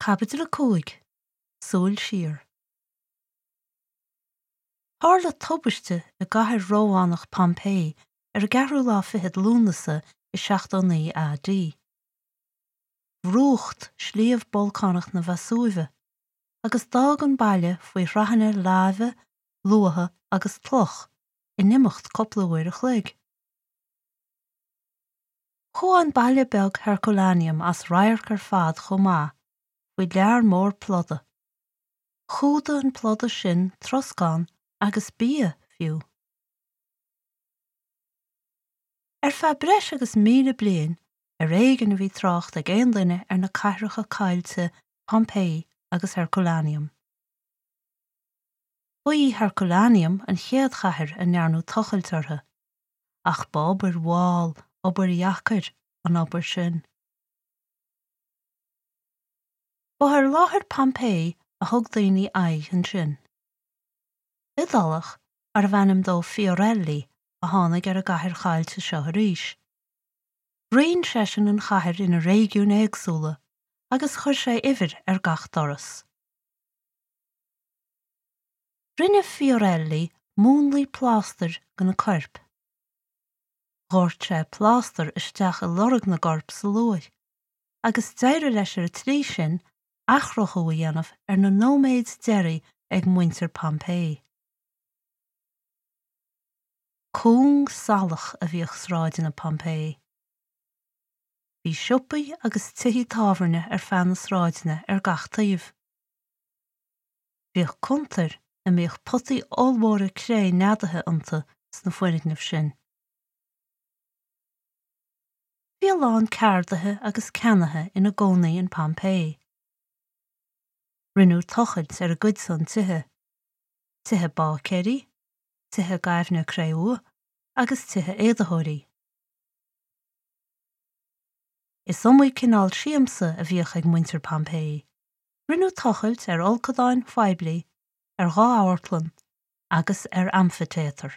Caibidil 5, Súil Siar. Tharla tubaiste i gcathair Rómhánach Pompeii ar an gceathrú lá fichead Lúnasa i 79 AD. Bhrúcht sliabh bolcánach na Veasúive agus d'fhág an baile faoi shraitheanna láibe, luatha agus cloch in imeacht cúpla uair a chloig. Chuaigh an baile beag Herculaneum as radharc ar fad chomh maith faoi lear mór pluda. Chumhdaigh an pluda sin troscán agus bia, fiú. Ar feadh breis agus 1,000 bliain, ar éigean a bhí trácht ag aon duine ar na cathracha caillte Pompeii agus Herculaneum. Ba í Herculaneum an chéad chathair a ndearnadh tochailt uirthi. Ach ba obair mhall, obair dheacair, an obair sin. Ba ar láthair Pompeii a thug daoine aghaidh ansin. Iodálach arbh ainm dó Fiorelli a tháinig ar an gcathair chaillte seo arís. Roinn seisean an chathair ina réigiúin éagsúla agus chuir sé uimhir ar gach doras. Rinne Fiorelli múnlaí plástair de na coirp. Dhoirt sé plástar isteach i lorg na gcorp sa luaith, agus d'éirigh leis ar an tslí sin athchruthú a dhéanamh ar na nóiméid deiridh ag muintir Pompeii. Cúng salach a bhíodh sráideanna Pompeii. Bhí siopaí agus tithí tábhairne ar feadh na sráideanna ar gach taobh. Bhíodh cuntair a mbíodh potaí ollmhóra cré neadaithe iontu sna foirgnimh sin. Bhí a lán ceardaithe agus ceannaithe ina gcónaí in Pompeii. Rinneadh tochailt ar a gcuidsean tithe, tithe báicéirí, tithe gaibhne cré-umha agus tithe éadaitheoirí. Is iomaí cineál siamsa a bhíodh ag muintir Pompeii. Rinneadh tochailt ar fholcadáin phoiblí, ar dha amharclann agus ar amfaitéatar.